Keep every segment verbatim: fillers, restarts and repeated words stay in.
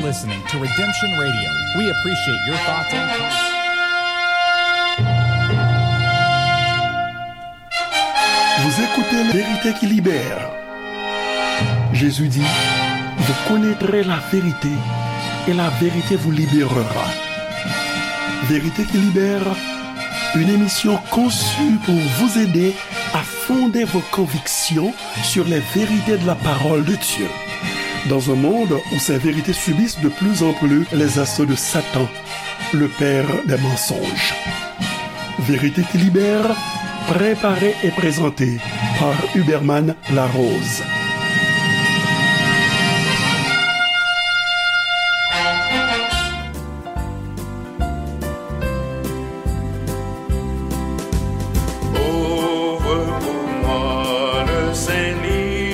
Listening to Redemption Radio. We appreciate your thoughts and comments. Vous écoutez Vérité qui libère. Jésus dit, vous connaîtrez la vérité et la vérité vous libérera. Vérité qui libère, une émission conçue pour vous aider à fonder vos convictions sur les vérités de la parole de Dieu. Dans un monde où ces vérités subissent de plus en plus les assauts de Satan, le père des mensonges. Vérité qui libère, préparée et présentée par Huberman Larose. Ouvre pour moi le Saint Livre,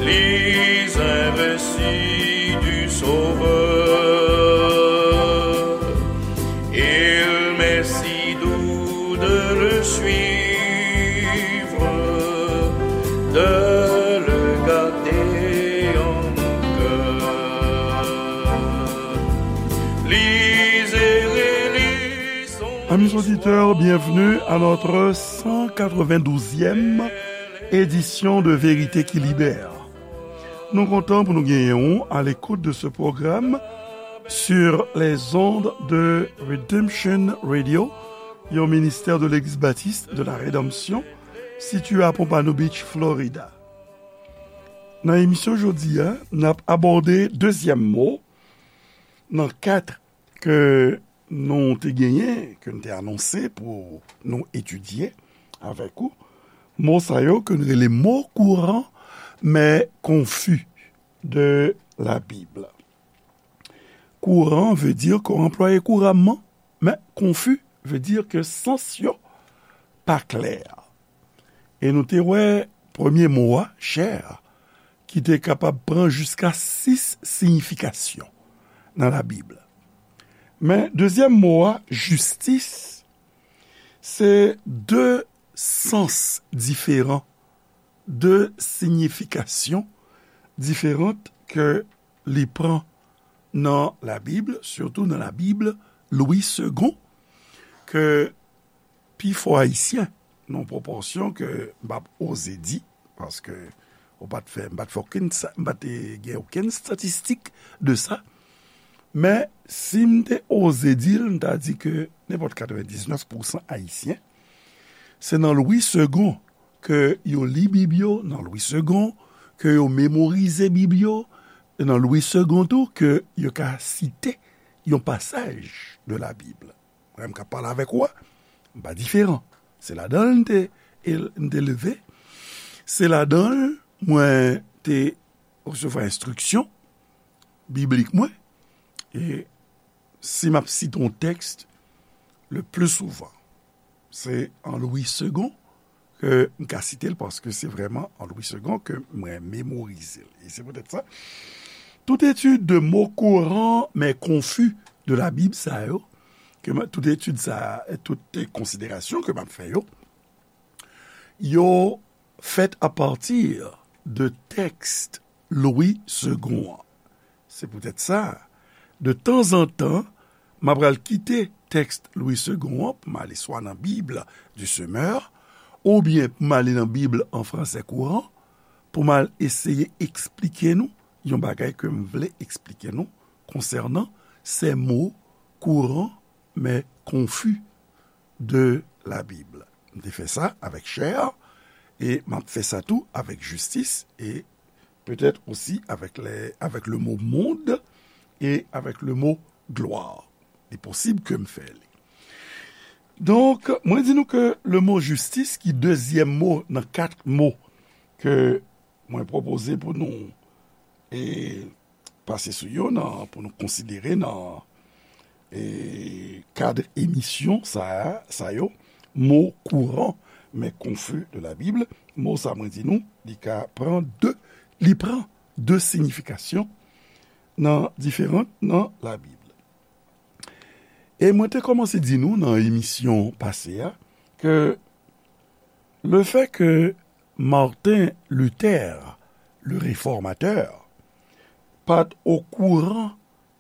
lis un récit du Sauveur. Il m'est si doux de le suivre, de le garder en mon cœur. Lisez et lisons. Amis auditeurs, bienvenue à notre cent quatre-vingt-douzième édition de Vérité qui libère. Nou kontan pou nou genyen w à l'écoute de ce programme sur les ondes de Redemption Radio, yon ministè de Legliz Batis de la Redanmsyon, sitiye à Pompano Beach, Florida. Nan emisyon jodi a, n ap abòde dezyèm mo nan kat ke nou te genyen, ke n te anonse pou nou etidye avèk ou. Mo sa yo ke n rele mo kouran, men konfi de la Bib. Kouran vle di ke w anplwaye kouramman, men konfi vle di ke sans yo pa klè. E nou te wè premye mo a, chè, ki te kapab pran jiska sis siyifikasyon nan Labib. Men dezyèm mo a, jistis, se de sans diferan, de siyifikasyon diferan ke li pran nan Labib, sitou nan Labib Lwi Segon, ke pifò Ayisyen, nan pwopòsyon ke m p ap oze di, paske ou pa t fè, m pa t fè okenn sa, m pa te gen okenn estatistik de sa. Men, si m te oze di l, m ta di ke nenpòt katrevendiznèf pousan Ayisyen, se nan Lwi Segon ke yo li Bib yo, nan Lwi Segon ke yo memorize Bib yo, e nan Lwi Segon tou ke yo ka site yon pasaj de Labib. Mwen menm k ap pale avèk ou a, m pa diferan. Se ladan l m te, m te leve. Se ladan l mwen te resevwa enstriksyon biblik mwen. E si m ap site yon tèks, le pli souvan, se an Lwi Segon ke m ka site l, paske se vrèman an Lwi Segon ke mwen memorize l. E se poutèt sa, tout etid de mo kouran men konfi de Labib sa yo, ke mwen, tout etid sa, tout konsiderasyon ke m ap fè yo, yo fèt apati de tèks Lwi Segon an. Se poutèt sa, de tanzantan, m ap pral kite tèks Lwi Segon an pou m ale swa nan Bib du Semeur, oubyen pou m ale nan Bib an fransè kouran, pou m al eseye eksplike nou yon bagay ke m vle eksplike nou konsènan ces mots courants mais confus de la Bible. M te fè sa avèk chè, e m ap fè sa tou avèk jistis, e petèt osi avèk le, avèk le mo mond e avèk le mo glwa. Li posib ke m fè li. Donk, mwen di nou ke le mo jistis, ki dezyèm mo nan kat mo ke mwen pwopoze pou nou, e, pase sou yo nan, pou nou konsidere nan, e, kad emisyon sa, sa yo, mo kouran men konfi de la Bib. Mo sa mwen di nou, li ka pran de, li pran de siyifikasyon nan diferan nan Labib. E mwen te kòmanse di nou nan emisyon pase a ke le fait que Martin Luther, le réformateur, pa t okouran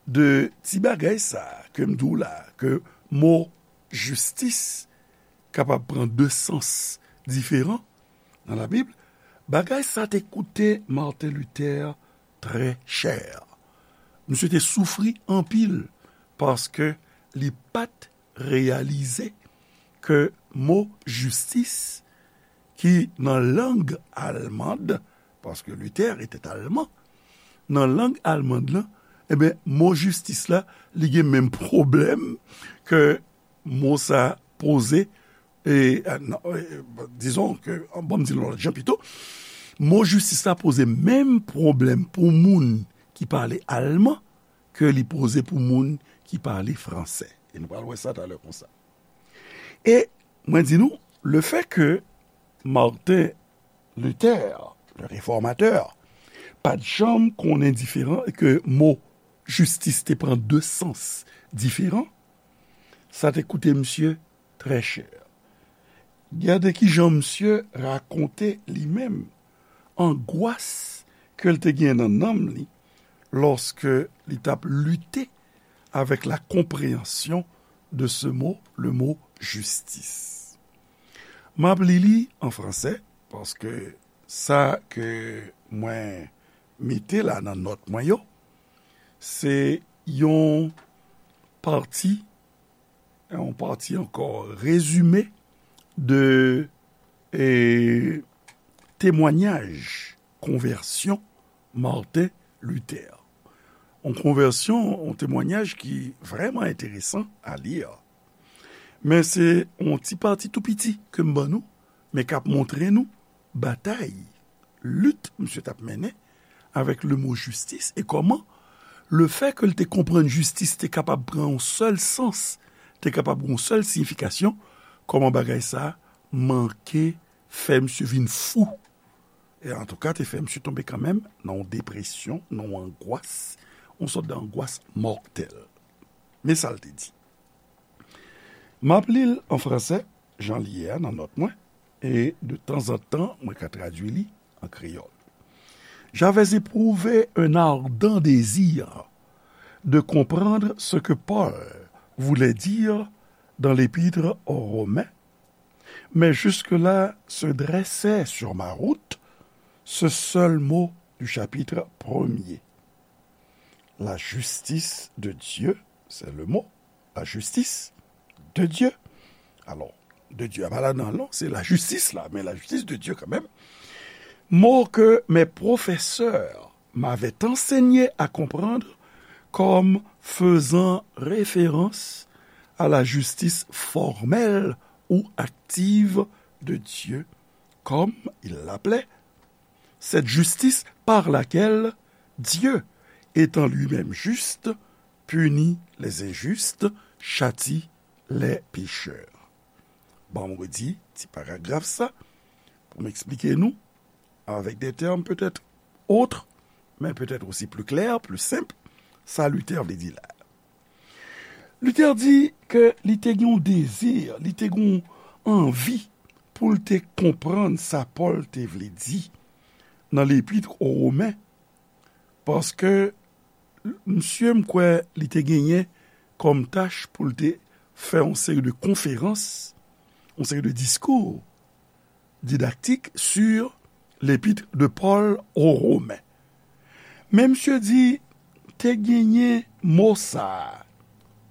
de ti bagay sa a ke m di w la, ke mo jistis kapab pran de sans diferan nan Labib, bagay sa te koute Martin Luther trè chè. Misye te soufri anpil paske li pa t reyalize ke mo jistis ki nan lang almand, paske Luther était allemand, nan lang almand lan, ebyen, mo jistis la, li gen menm pwoblèm ke mo sa poze, e, e, non, e, dizon ke, bon, m di l yon lòt jan pito, mo jistis la poze menm pwoblèm pou moun ki pale alman ke li poze pou moun ki pale fransè. E nou pral wè sa talè konsa. E mwen di nou, le fait que Martin Luther, le réformateur, pa t janm konnen diferan e ke mo jistis te pran de sans diferan, sa te koute misye trè chè. Gade kijan misye rakonte li menm angwas ke l te gen nan nanm li lòske li t ap lite avec la compréhension de ce mot, le mot justice. M ap li li an fransè, paske sa ke mwen mete la nan nòt mwen yo, se yon pati, yon pati ankò, rezime de, e, temwanyaj konvèsyon Martin Luther. Yon konvèsyon, yon temwanyaj ki vrèman enteresan a li. Men se yon ti pati tou piti ke m ban nou, men k ap montre nou batay, lit misye t ap mennen avèk le mo jistis e kòman le fait que l te konprann jistis te kapab pran yon sèl sans, te kapab yon sèl siyifikasyon, kòman bagay sa a manke fè misye vin fou. E antouka, te fè misye tonbe kanmenm nan yon depresyon, nan yon angwas, yon sòt de angwas mòtèl. Men sa l te di. M ap li l an fransè, jan li ye a nan nòt mwen, e de tanzantan, mwen ka tradui li an kreyòl. J'avais éprouvé un ardent désir de comprendre ce que Paul voulait dire dans l'épître aux Romains, mais jusque-là se dressait sur ma route ce seul mot du chapitre premier. La justice de Dieu, c'est le mot, la justice de Dieu. Alors, de Dieu, a pa la nan non, se la jistis la, men la justice de Dieu quand même. Mot que mes professeurs m'avaient enseigné à comprendre comme faisant référence à la justice formelle ou active de Dieu, comme il l'appelait, cette justice par laquelle Dieu, étant lui-même juste, punit les injustes, châtie les pécheurs. Ban m redi ti paragraf sa pou m eksplike nou avec des termes peut-être autres, mais peut-être aussi plus clairs, plus simples, sa Luther vle di la. Luther di ke li te gen yon dezi, li te gen yon anvi pou l te konprann sa Pòl te vle di nan Lepit o Women, paske misye, m kwè, li te genyen kòm tach pou l te fè yon seri de konferans, yon seri de diskou didaktik sur l'épître de Paul aux Romains. Men misye di, te genyen mo sa a,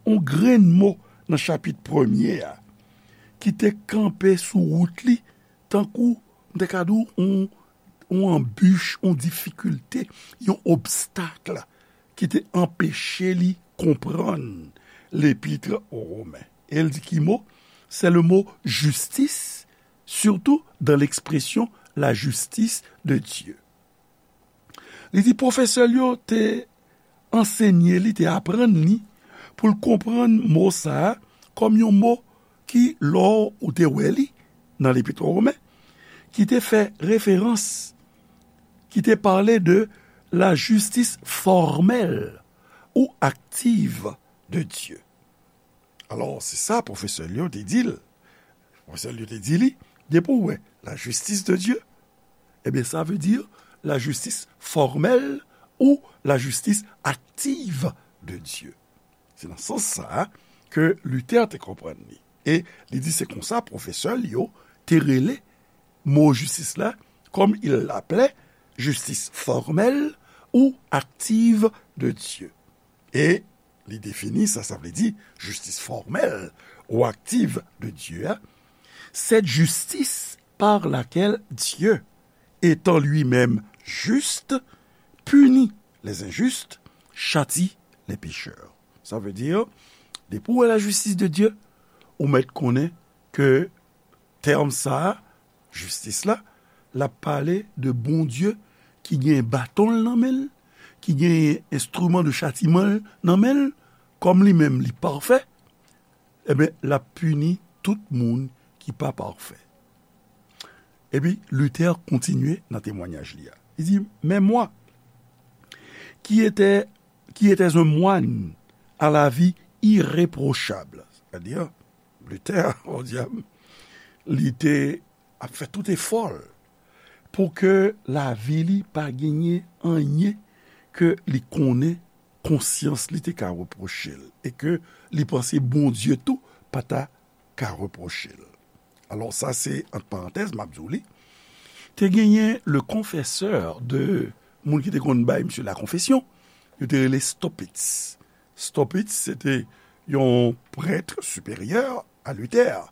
yon grenn mo nan chapit premye a, ki te kanpe sou wout li, tankou, m te ka di w, yon, yon anbich, yon difikilte, yon obstak ki te anpeche li konprann Lepit o Women. E l di ki mo? C'est le mot justice, surtout dans l'expression la justice de Dieu. Li di pwofesè l yo te ansenye li, te aprann li pou l konprann mo sa a kòm yon mo ki, lè w te wè li nan Lepit o Women, ki te fè referans, ki te pale de la justice formelle ou active de Dieu. Alò, se sa pwofesè l yo te di l. Pwofesè l yo te di li, depi w wè la justice de Dieu, ebyen, sa vle di la justice formelle ou la justice active de Dieu. Se nan sans sa a ke Luther te konprann li. E li di se konsa pwofesè li yo te rele mo jistis la, comme il l'appelait, justice formelle ou active de Dieu. E li defini sa, sa vle di jistis fòmèl ou aktiv de Dye a, cette justice par laquelle Dieu, étant lui-même juste, punit les injustes, châtie les pécheurs. Sa vle di, depi w wè la justice de Dieu, ou mèt konnen ke tèm sa a, jistis la, l ap pale de Bondye ki gen baton l nan men l, ki gen enstriman de chatiman l nan men l, kòm li menm li pafè, ebyen, l ap pini tout moun ki pa pafè. Epi, Luther kontinye nan temwanyaj li a. Li di, mais moi, qui était, qui était un moine à la vie irréprochable, c'est-à-dire, Luther, o dyab, li te ap fè tout efò l pou ke lavi li pa genyen anyen ke li konnen konsyans li te ka repwoche l e ke li panse Bondye tou pa ta ka repwoche l. Alò, sa se ant parantèz, m ap di w li. Te genyen le confesseur de moun ki te konn bay misye la confession, yo te rele Staupitz. Staupitz, se te yon prèt siperyè a Luther,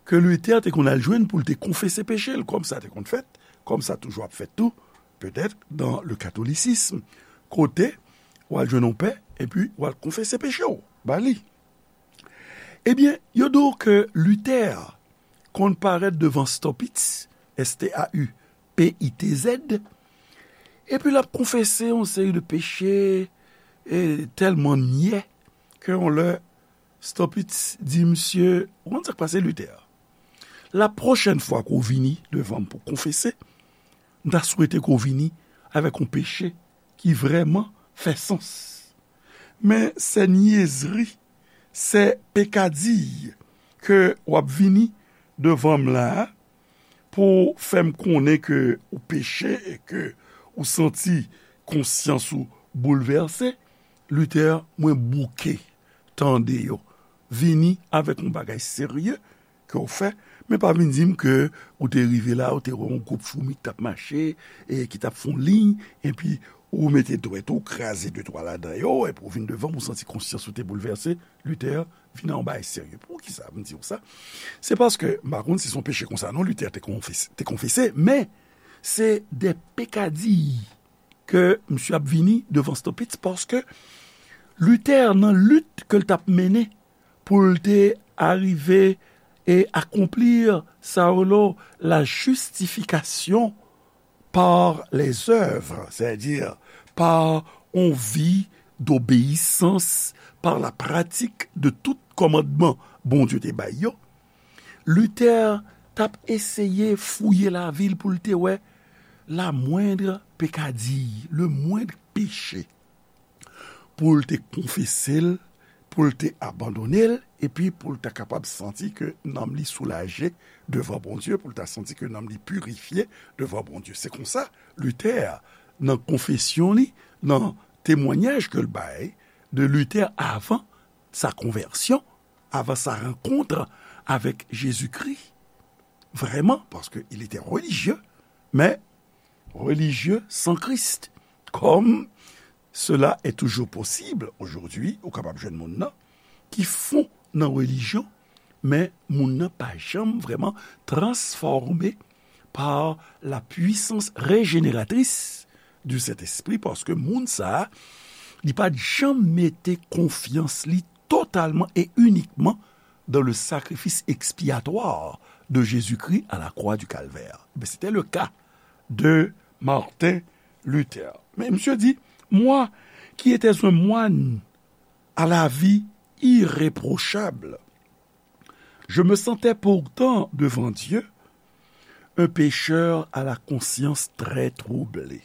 ke Luther te konn al jwenn pou l te konfese peche l, kòm sa te konn fèt, kòm sa toujou ap fèt tou, petèt, dans le catholicisme, kote w al jwenn yon pè, epi w al konfese peche w ba li. Ebyen, yo di w ke Luther konn parèt devan Staupitz, S T A U P I T Z, epi l ap konfese yon seri de peche, e tèlman nyè, ke yon lè Staupitz di misye, ou konn sa k pase, Luther? La pwochèn fwa ke w vini devan m pou konfese, m ta swete ke w vini avèk yon peche ki vrèman fè sans. Men sè nyezri, sè pekadiy ke w ap vini devan m la a, pou fè m konnen ke ou peche e ke ou santi konsyans ou boulvèse, Luther, mwen bouke tande yo. Vini avèk yon bagay serye ke w fè, men pa vin di m ke ou te rive la, ou te wè yon gwoup foumi ki t ap mache, e ki t ap fè yon liy, epi ou mete dwèt ou, kraze de twa ladan yo, epi ou vin devan m, ou santi konsyans ou te boulvèse. Luther, vin a yon bagay serye. Poukisa m di w sa? Se paske, m pa konn si se yon peche konsa non, Luther te konfese, te konfese, men se de pekadiy ke misye ap vini devan Staupitz, paske Luther, nan lit ke l t ap mennen pou l te arive e akonpli sa yo lo la justification par les œuvres, c'est-à-dire par yon vi d'obéissance, par la pratique de tout kòmandman Bondye te bay yo, Luther t ap eseye fouye lavi l pou l te wè la moindre pekadiy, le moindre péché, pou l te konfese l, pou l te abandone l, epi pou l ta kapab santi ke nanm li soulaje devan Bondye, pou l ta santi ke nanm li pirifye devan Bondye. Se konsa, Luther, nan konfesyon li, nan temwanyaj ke l bay de Luther avan sa konvèsyon, avan sa rankont avèk Jezikri, vrèman, paske il était religieux, men religieux sans Christ, comme cela est toujours possible aujourd'hui, ou kapab jwenn moun nan ki fon nan relijyon, men moun nan pa janm vrèman transfòme par la puissance régénératrice du Saint-Esprit, paske moun sa a, li pa t janm mete konfyans li totalman e inikman dans le sacrifice expiatoire de Jésus-Christ à la croix du Calvaire. Ben, c'était le cas de Martin Luther. Mais monsieur dit, moi, qui étais un moine à la vie irréprochable, je me sentais pourtant devant Dieu un pécheur à la conscience très troublée.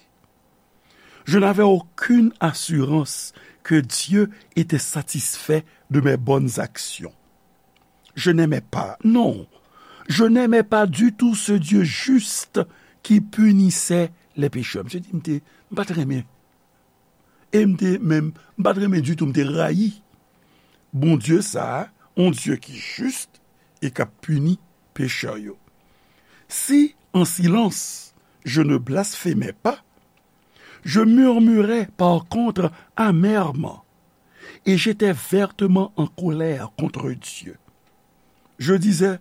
Je n'avais aucune assurance que Dieu était satisfait de mes bonnes actions. Je n'aimais pas, non, je n'aimais pas du tout ce Dieu juste qui punissait les pécheurs. Misye di, m te, m pa t renmen E m te menm, m pa t renmen ditou, m te rayi Bondye sa a, yon Dye ki jis e k ap pini pechè yo. Si, en silence, je ne blasphémais pas, je murmurais par contre amèrement, et j'étais vertement en colère contre Dieu. Je disais,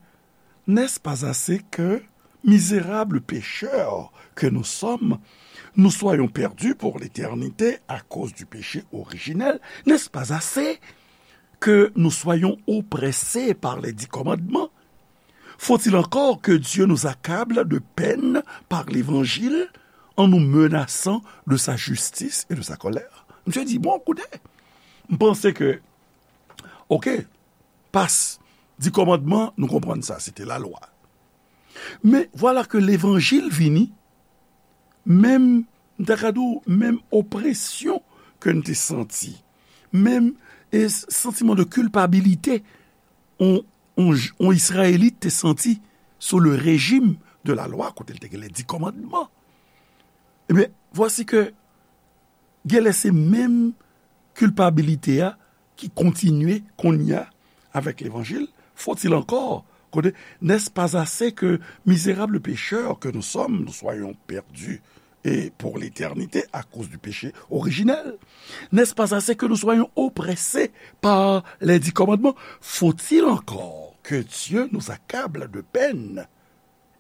n'est-ce pas assez que, misérables pécheurs que nous sommes, nous soyons perdus pour l'éternité à cause du péché originel? N'est-ce pas assez que nous soyons oppressés par les dix commandements? Faut-il encore que Dieu nous accable de peine par l'évangile en nous menaçant de sa justice et de sa colère? Misye di, bon, koute, m panse ke, oke, pas, di kòmandman, nou konprann sa, se te lalwa. Men vwala ke levanjil vini, menm, m ta ka di w, menm opresyon ke n te santi, menm e, santiman de kilpabilite, on, on, on Izrayelit te santi sou le rejim de la lwa, kote l te gen les dix commandements. Ebyen, vwasi ke genlè se menm kilpabilite a ki kontinye kounye a avèk levanjil. Faut-il encore, kote, n'est-ce pas assez que, misérables pécheurs que nous sommes, nous soyons perdus et pour l'éternité à cause du péché originel? N'est-ce pas assez que nous soyons oppressés par les dix commandements? Faut-il encore que Dieu nous accable de peine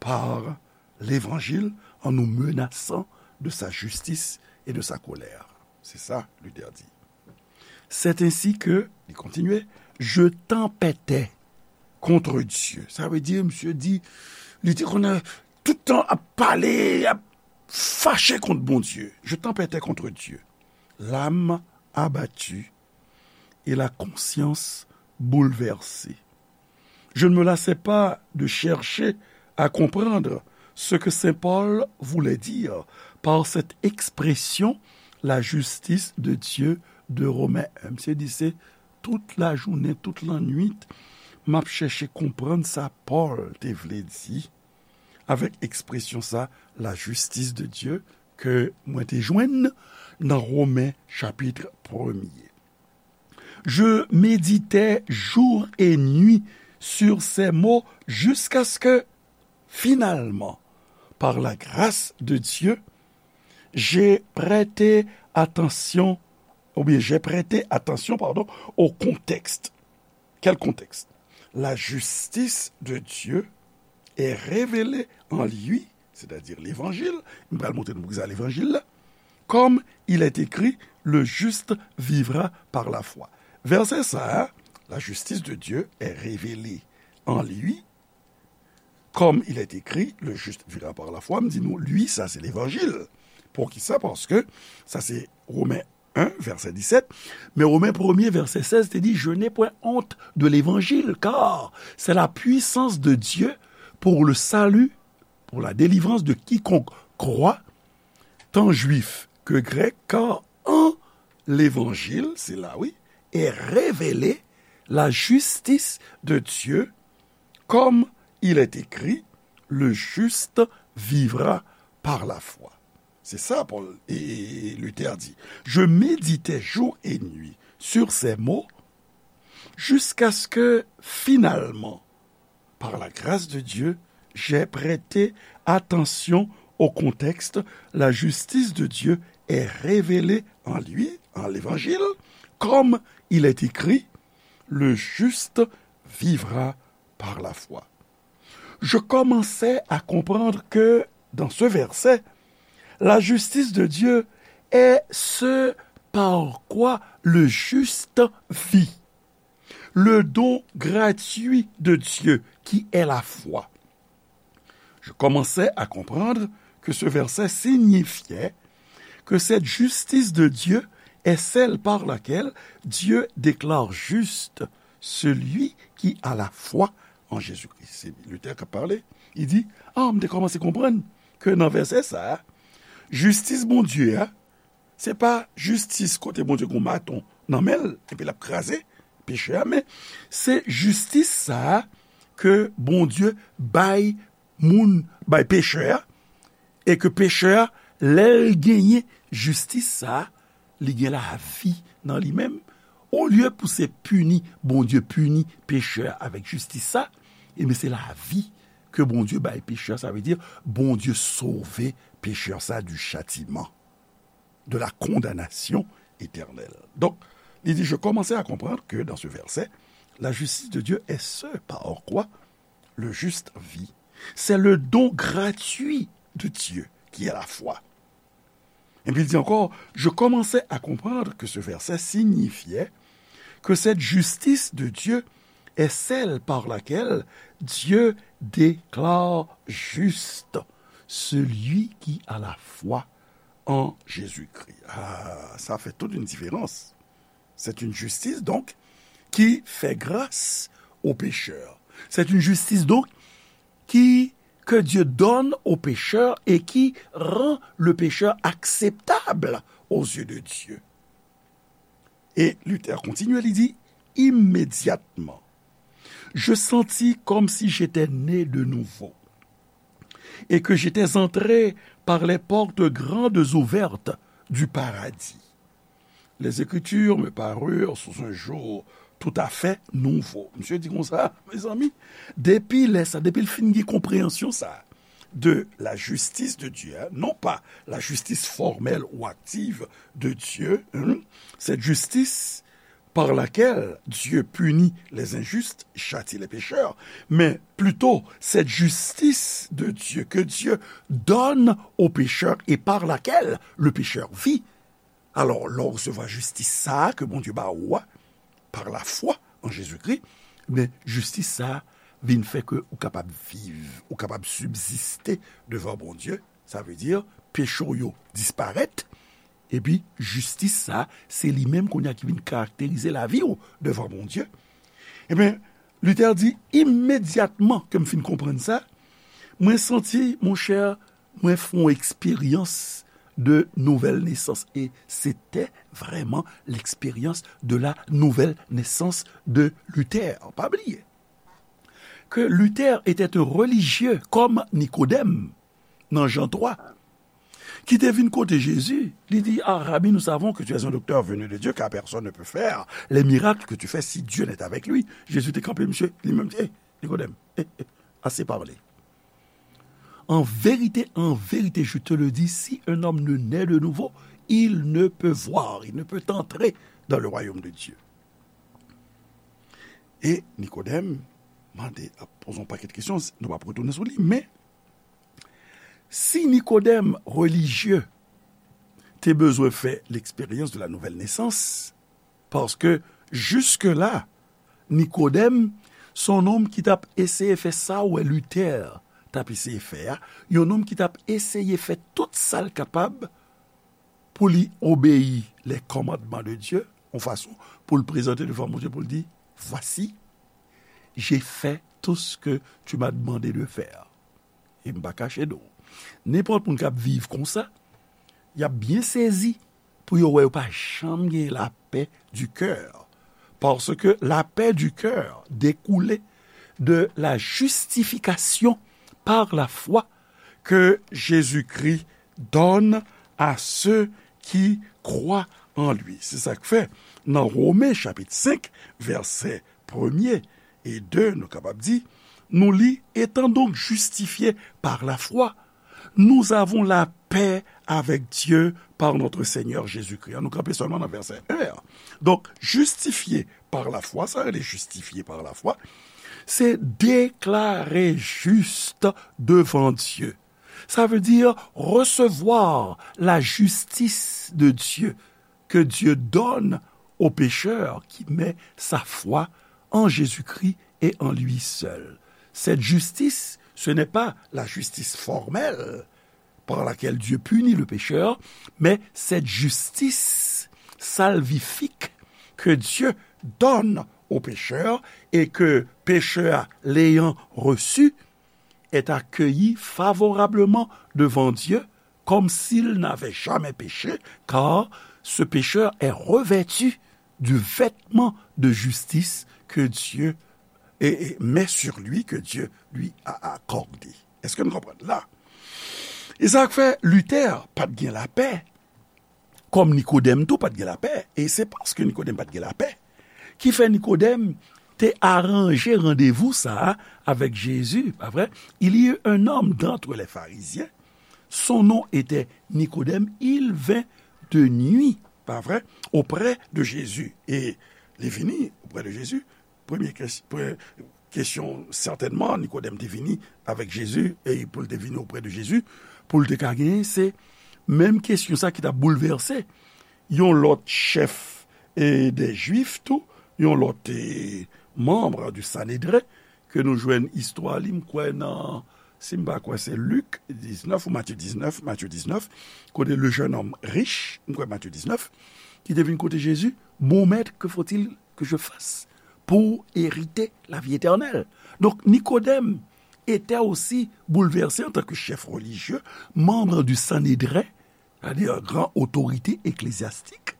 par l'évangile en nous menaçant de sa justice et de sa colère? Se sa Luther di. C'est ainsi que, li kontinye, je tempêtais contre Dieu. Sa vle di, misye di, li te konn tout tan ap pale, ap fache kont Bondye. Je tempêtais contre Dieu, l'âme abattue et la conscience bouleversée. Je ne me lassais pas de chercher à comprendre ce que Saint Paul voulait dire par cette expression, la justice de Dieu de Romains un. Misye di se tout lajounen, tout lannwit, m ap chèche konprann sa Pòl te vle di avèk ekspresyon sa, la justice de Dieu, ke mwen te jwenn nan Romen chapit premye. Je méditais jour et nuit sur ces mots jusqu'à ce que, finalement, par la grâce de Dieu, j'ai prêté attention, ou bien j'ai prêté attention, pardon, au contexte. Quel contexte? La justice de Dieu est révélée en lui, c'est-à-dire l'évangile, m pral montre nou poukisa levanjil la, comme il est écrit, le juste vivra par la foi. Vèsè sa a, la justice de Dieu est révélée en lui, comme il est écrit, le juste vivra par la foi, m di nou, lui, sa se levanjil. Poukisa? Paske sa se Romen un, vèsè disèt, men Romen premye, vèsè sèz te di, je n'ai point honte de l'évangile, car c'est la puissance de Dieu pour le salut, pour la délivrance de quiconque croit, tant juif que grec, car en l'évangile, se la, wi, est révélée la justice de Dieu, comme il est écrit, le juste vivra par la foi. Se sa Pòl e, e, e Luther di. Je méditais jour et nuit sur ces mots jusqu'à ce que, finalement, par la grâce de Dieu, j'ai prêté attention au contexte. La justice de Dieu est révélée en lui, en l'évangile, comme il est écrit, le juste vivra par la foi. Je commençais à comprendre que, dans ce verset, la justice de Dieu est ce par quoi le juste vit, le don gratuit de Dieu qui est la foi. Je commençais à comprendre que ce verset signifiait que cette justice de Dieu est celle par laquelle Dieu déclare juste celui qui a la foi en Jésus-Christ. Se Luther k ap pale. Li di, ah, m te kòmanse konprann ke nan vèsè sa a, jistis Bondye a, se pa jistis kote Bondye gen maton nan men l, epi l ap kraze pechè a, men se jistis sa a ke Bondye bay moun, bay pechè a, e ke pechè a, lè l genyen jistis sa a, li gen lavi nan li menm. Olye pou se pini, Bondye pini pechè a avèk jistis sa, ebyen se lavi ke Bondye bay pechè a, sa vle di Bondye sove pechè sa du châtiment, de la condamnation éternelle. Donc, il dit, je commençais à comprendre que dans ce verset, la justice de Dieu est ce par quoi le juste vit. C'est le don gratuit de Dieu qui est la foi. Et puis il dit encore, je commençais à comprendre que ce verset signifiait que cette justice de Dieu est celle par laquelle Dieu déclare juste celui qui a la foi en Jésus-Christ. Ah, ça fait toute une différence. C'est une justice, donc, qui fait grâce aux pécheurs. C'est une justice, donc, qui, que Dieu donne au pécheur et qui rend le pécheur acceptable aux yeux de Dieu. Et Luther continue, il dit, immédiatement, je sentis comme si j'étais né de nouveau et que j'étais entré par les portes grandes ouvertes du paradis. Les Écritures me parurent sous un jour tout à fait nouveau. Misye di konsa, mezanmi, depi lè sa, depi l fin gen konpreyansyon sa, de la justice de Dieu, hein, non pas la justice formelle ou active de Dieu, hein, cette justice par laquelle Dieu punit les injustes, châtie les pécheurs, mais plutôt cette justice de Dieu que Dieu donne au pécheur et par laquelle le pécheur vit. Alò, lè w resevwa jistis sa a ke Bondye ba ou a, par la foi en Jésus-Christ, men jistis sa a vin fè ke ou kapab viv, ou kapab sibziste devan Bondye. Sa vle di, peche w yo disparèt, epi jistis sa a, se li menm kounye a ki vin karakterize lavi w devan Bondye. Ebyen, Luther di, imedyatman ke m fin konprann sa, mwen santi, monchè, mwen fè yon eksperyans de nouvèl nesans. E se te vrèman l'expérience de la nouvelle naissance de Luther. Pa bliye ke Luther était un religieux comme Nicodème nan Jan twa, ki te vin kote Jezi, li di, ah, Rabbi, nous savons que tu es un docteur venu de Dieu, car personne ne peut faire les miracles que tu fais si Dieu n'est avec lui. Jezi te kanpe, misye, li menm, eh, Nikodèm, eh, eh, assez parlé. En vérité, en vérité, je te le dis, si un homme ne naît de nouveau, il ne peut voir, il ne peut entrer dans le royaume de Dieu. E Nikodèm mande, ap poze yon pakèt kesyon, nou p ap retounen sou li, men si Nikodèm relijye te bezwen fè l'expérience de la nouvelle naissance, paske jiske la, Nikodèm, se yon nonm ki t ap eseye fè sa w wè Luther t ap eseye fè a, yon nonm ki t ap eseye fè tout sa l kapab pou li obeyi les commandements de Dieu, yon fason pou l prezante devan Bondye, pou l di, voici, j'ai fait tout ce que tu m'as demandé de faire. E m pa kache non. Nenpòt moun k ap viv konsa, y ap byen sezi pou yo wè yo pa janm gen la paix du cœur. Parce que la paix du cœur découle de la justification par la foi que Jésus-Christ donne à ceux qui croient en lui. Se sa k fè, nan Women chapit senk, vèsè premye e de, nou kapab di, nou li, étant donc justifiés par la foi, nous avons la paix avec Dieu par notre Seigneur Jésus-Christ. Nou kanpe sèlman nan vèsè en an. Donk, justifié par la foi, sa rele justifié par la foi, se deklare jis devan Dye. Ça veut dire recevoir la justice de Dieu que Dieu donne au pécheur qui met sa foi en Jésus-Christ et en lui seul. Cette justice, ce n'est pas la justice formelle par laquelle Dieu punit le pécheur, mais cette justice salvifique que Dieu donne au pécheur et que pécheur l'ayant reçue est accueilli favorablement devant Dieu comme s'il n'avait jamais péché, car ce pécheur est revêtu du vêtement de justice que Dieu et, et met sur lui, que Dieu lui a accordé. Èske nou konprann la? E sa k fè Luther pa t gen lapè Kòm Nikodèm tou pa t gen lapè, e se paske Nikodèm pa t gen lapè ki fè Nikodèm te aranje randevou sa a avèk Jezi, pa vre? Il y eut un homme d'entre les pharisiens, son nom était Nicodème, il vint de nuit, pa vre, auprès de Jésus. E li vini auprès de Jésus. Premye kes- pre- kesyon, sètènman, Nikodèm te vini avèk Jezi, e pou l te vini auprès de Jésus, pou l te ka genyen, se menm kesyon sa ki t ap boulvèse yon lòt chèf e dè Jwif tou, yon lòt e, manm du Sanedren, ke nou jwenn istwa li, m kwè nan, si m pa kwè, se Lik diznèf ou Matye diznèf, Matye diznèf, kote le jeune homme riche, m kwè Matye diznèf, ki te vin kote Jezi, Bon maître, que faut-il que je fasse pour hériter la vie éternelle? Donc, Nikodèm était aussi bouleversé en tant que chef religieux, membre du Sanhédrin, c'est-à-dire gran otorite eklezyastik,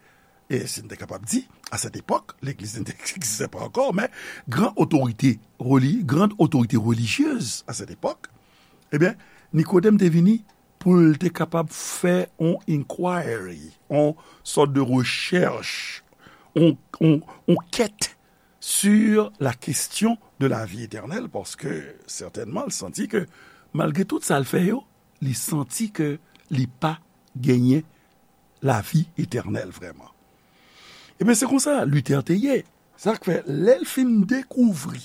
e si n te kapab di, a sèt epòk, legliz n te egziste pa ankò, men gran otorite reli- grande autorité religieuse à cette époque, ebyen, Nikodèm te vini pou l te kapab fè on inquiry, on sòt de rechèch, on, on, on kèt sur la question de la vie éternelle, paske sètènman, l santi ke, malgre tout sa l fè yo, li santi ke li pa genyen lavi etènèl vrèman. Ebyen, se konsa Luther te ye. Sa k fè, lè l fin dekouvri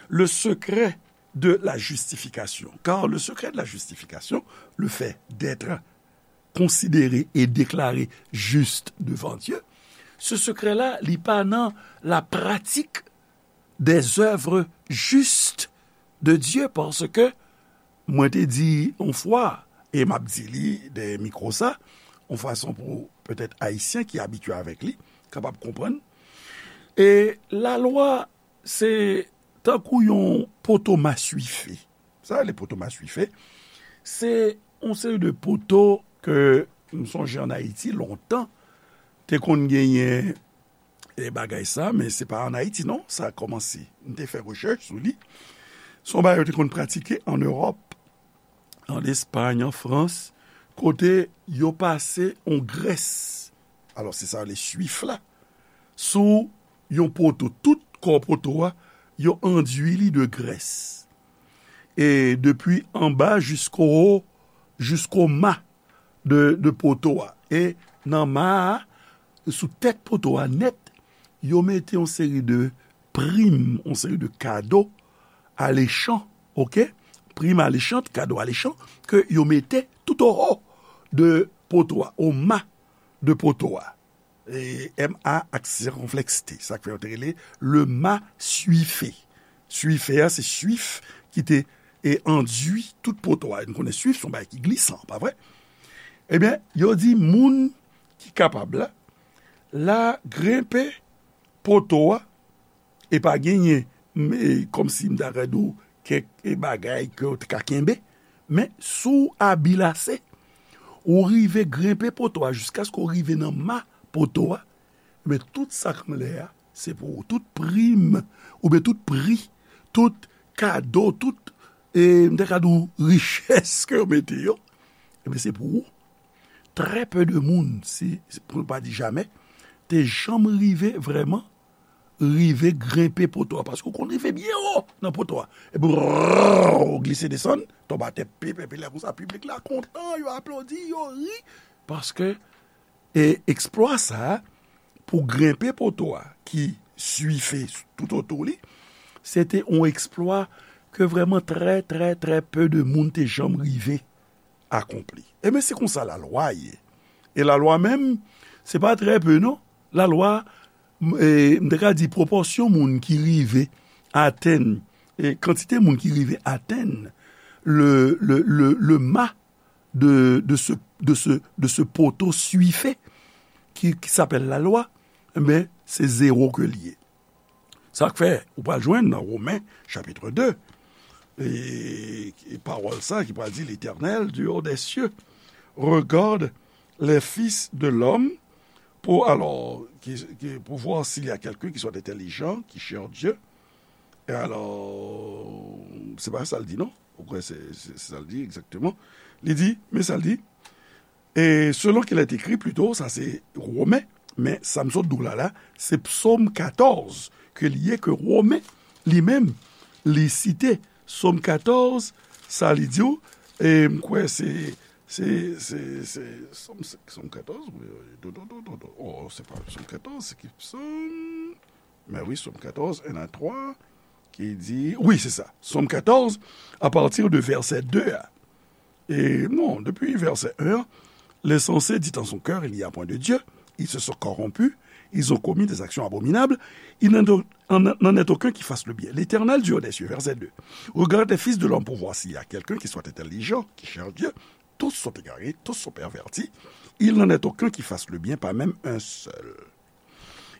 le secret de la justification, car le secret de la justification, le fait d'être considéré et déclaré juste devant Dieu, ce secret-là, li pa nan la pratique des œuvres justes de Dieu, paske mwen te di yon fwa, e m ap di li dèyè mikwo sa, yon fason pou petèt Ayisyen ki abitye avèk li kapab konprann. E lalwa, se tankou yon poto maswife. Sa rele poto maswife. Se yon seri de poto ke m sonje ann Ayiti, lontan, te konn genyen e bagay sa, men se pa ann Ayiti, non, sa kòmanse. M te fè rechèch sou li. Se yon bagay yo te konn pratike ann Ewòp, ann Espay, ann Frans, kote yo pase yon grès, alò, se sa yo rele swif la, sou yon poto. Tout kò poto a, yo andui li de grès. E depi anba jisko, jisko ma de, de poto a. E nan ma a, sou tèt poto a nèt, yo mete yon seri de prim, yon seri de kado alechan, oke? Prim alechan, kado alechan, ke yo mete tout o ho de poto a, o ma de poto a. E M A ak sikonflèks T. Sa k fè yo te rele le ma swifé. Swifé a, se swif ki te e andui tout poto a. Nou konnen swif se yon bagay ki glisan, pa vre? Ebyen, yo di moun ki kapab la, la grenpe poto a, e pa genyen, m, e, kòmsi m ta ka di w, kèk, e, bagay ke w te ka kenbe, men si w abil ase, ou rive grenpe poto a jiskaske w rive nan ma poto a, men tout sa k anlè a, se pou ou. Tout prim, oubyen tout pri, tout kado, tout, e, m ta ka di w, richès ke yo mete yo, ebyen, se pou ou. Trè pe de moun, si, si, pou n pa di jamè, te janm rive vrèman, rive grenpe poto a, paske w konn rive byen wo nan poto a. Epi, brrr, ou glise desann, tonbe atè, pip, epi lè konsa, piblik la kontan, yo aplodi, yo ri, paske, e, eksplwa sa a, pou grenpe poto a, ki swife tout otou li, se te yon eksplwa ke vrèman trè, trè, trè pe de moun te janm rive akonpli. Ebyen, se konsa lalwa ye. E lalwa menm, se pa trè pe, non. Lalwa, m, e, m te ka di pwopòsyon moun ki rive atenn, e, kantite moun ki rive atenn le, le, le, le ma de, de ce, de ce, de ce poteau suiffé qui, qui s'appelle la loi, men se zewo ke l ye. Sa k fè, ou pral jwenn nan Women, chapit de, e, e pawòl sa ki pral di, L'Éternel, du haut des cieux, regarde les fils de l'homme, pour, alors, qui, qui, pour voir s'il y a quelqu'un qui soit intelligent, qui cherche Dieu. E alò, se pa sa l di, non? Ou kwè se, se, se sa l di egzakteman? Li di, men sa l di, E selon qu'il est écrit, plito, sa se Women, men sa m sot di w la, la, se Psaume quatorze ke li ye, ke Women, li menm, li site. Psaume quatorze, sa li di w, e m kwè se, se, se, se, Psaume, Psaume quatorze, wi, wi, do, do, do, do, do. Oh, se pa Psaume quatorze, se ki Psaume? Men wi, Psaume quatorze, un à trois, ki di, wi, se sa, Psaume quatorze, à partir de verset deux a. E non, depi vèsè en an, l'insensé dit en son cœur, il n'y a point de Dieu, ils se sont corrompus, ils ont commis des actions abominables, il n'en, en, n'en est aucun qui fasse le bien. L'Éternel, Dieu des cieux, verset deux, regarde les fils de l'homme pour voir s'il y a quelqu'un qui soit intelligent, qui cherche Dieu. Tous sont égarés, tous sont pervertis. Il n'en est aucun qui fasse le bien, pas même un seul.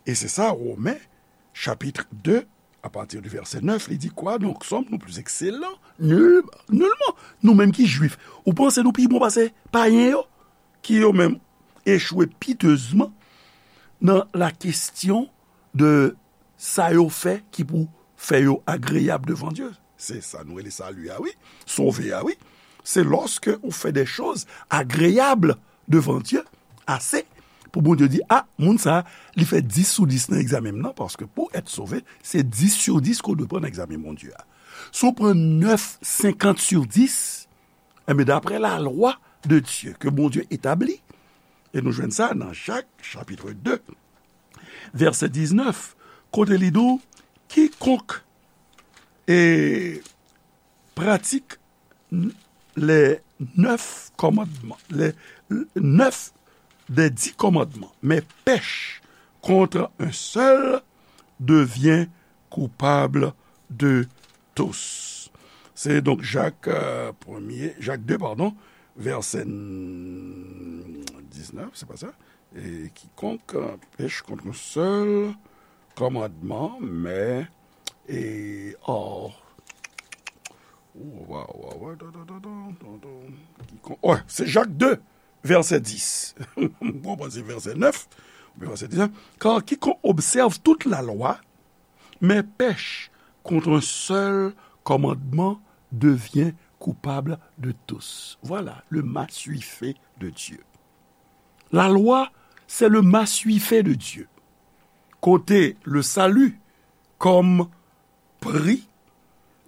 E se sa, Women, chapit de, apati di vèsè nèf, li di, quoi donc, sommes-nous plus excellents? Nul, nulman. Nou menm ki jwif, ou panse nou pi bon pase payen yo, ki yo menm echwe pitezman nan la kesyon de sa yo fè ki pou fè yo agreyab devan Dye? Se sa nou rele sali a, wi. Sove a, wi. Se lòske ou fè de choz agreyab devan Dye ase pou Bondye di, a, moun sa, li fè dis sou dis nan egzamen m nan, paske pou èt sove, se dis sou dis ke w dwe pran nan egzamen Bondye a. Si w pran nèf senkant sou dis, enben, daprè lalwa de Dye ke Bondye etabli, e nou jwenn sa nan Jak, chapit de, vèsè diznèf, kote li di w, kikonk e pratique les neuf commandements, les neuf des dix commandements, mais pèche contre un seul devient coupable de tous. Se donk Jak, euh, premye, Jak de, padon, vèsè diznèf, se pa sa? E kikonk, euh, pèche contre un seul commandement, mais, e, oh, oh, wa, wa, wa, da, da, da, da, da, da, kikonk, ouais, se Jak de, vèsè dis. M konprann se vèsè nèf, oubyen vèsè diznèf. Car quiconque observe toute la loi, mais pèche contre un seul commandement devient coupable de tous. Voilà le massuifé de Dieu. La loi, c'est le massuifé de Dieu. Kote le salut kòm pri,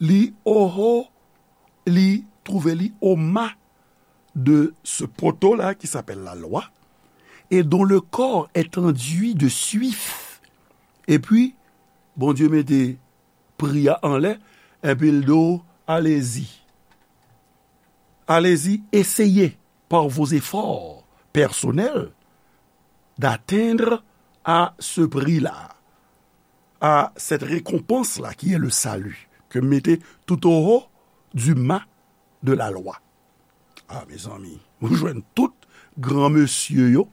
li oho, li twouve li o ma de ce poteau-là qui s'appelle la loi, et dont le corps est enduit de suif. Epi, Bondye mete pri a anlè, epi l di w, allez-y. Allez-y, essayez par vos efforts personnels d'atteindre à ce prix-là, à cette récompense-là qui est le salut, ke m mete tout au haut du mât de la loi. A, mezanmi, ou jwenn tout gran mesye yo,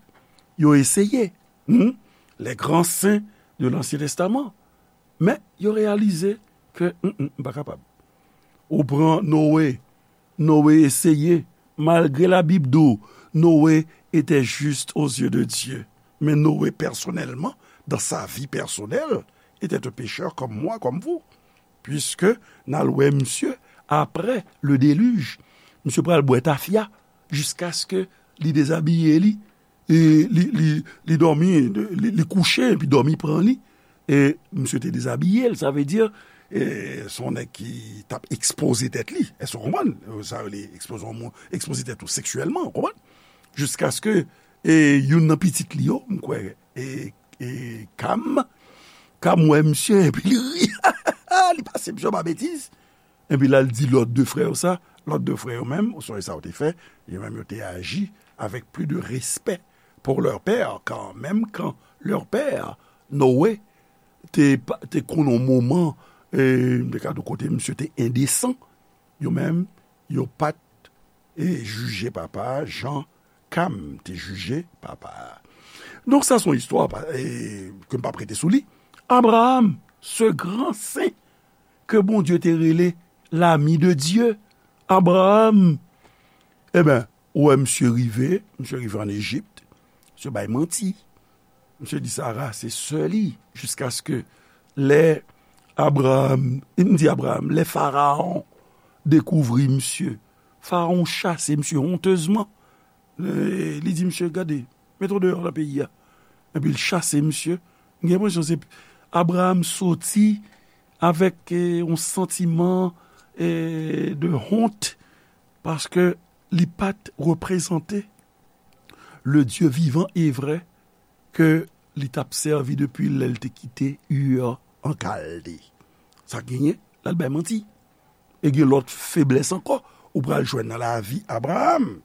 yo eseye, hmm? Les grands saints de l'Ancien Testament. Men, yo reyalize ke, hmm, hmm, m pa kapab. Ou pran Noe, Noe eseye, malgre Labib di w, Noe était juste aux yeux de Dieu. Men Noe, pèsonèlman, dans sa vie personnelle, était un pécheur comme moi, comme vous. Puiske n al wè misye apre le déluge. Misye pral bwè tafya jiskaske li dezabiye li, e li, li, li dòmi, li, li kouche, epi dòmi pran li. E misye te dezabiye l, sa vle di, e, se yon nèg ki t ap ekspoze tèt li. Èske w konprann? Sa rele ekspoze yon moun, ekspoze tèt ou seksyèlman, w konprann? Jiskaske, e, youn nan pitit li yo, m kwè, e, e Kam, Kam wè misye, epi li ri. Li pase misye pa betiz. Epi la, l di lòt de frè yo sa. Lòt de frè yo menm, ou sonje sa yo te fè, yo menm yo te aji avec plus de respect pour leur père, car même quand leur père, Noé, te, pa- te konn yon moman, e, m te ka di w kote misye te endesan, yo menm, yo pa t, e, jije papa a jan Kam te jije papa a. Donk, sa se yon istwa pa- e, ke m p ap rete sou li. Abraham, ce grand saint ke Bondye te rele l'ami de Dieu, Abraham, eben, ou wè misye rive, misye rive ann Ejip, misye bay manti. Misye di Sara se sè li, jiskaske lè Abraham, m di Abraham, lè Farawon dekouvri misye, Farawon chase misye hontezman. E, li di misye, gade, mete w deyò nan peyi a. Epi l chase misye. M gen enpresyon se Abraram soti avèk e, yon santiman e, de honte paske li pa t reprezante le Dieu vivant et vrai ke li t ap sèvi depi lè l te kite Ur an Kalde. Sa genyen, l al bay manti. E gen lòt feblès ankò ou pral jwenn nan lavi Abraram.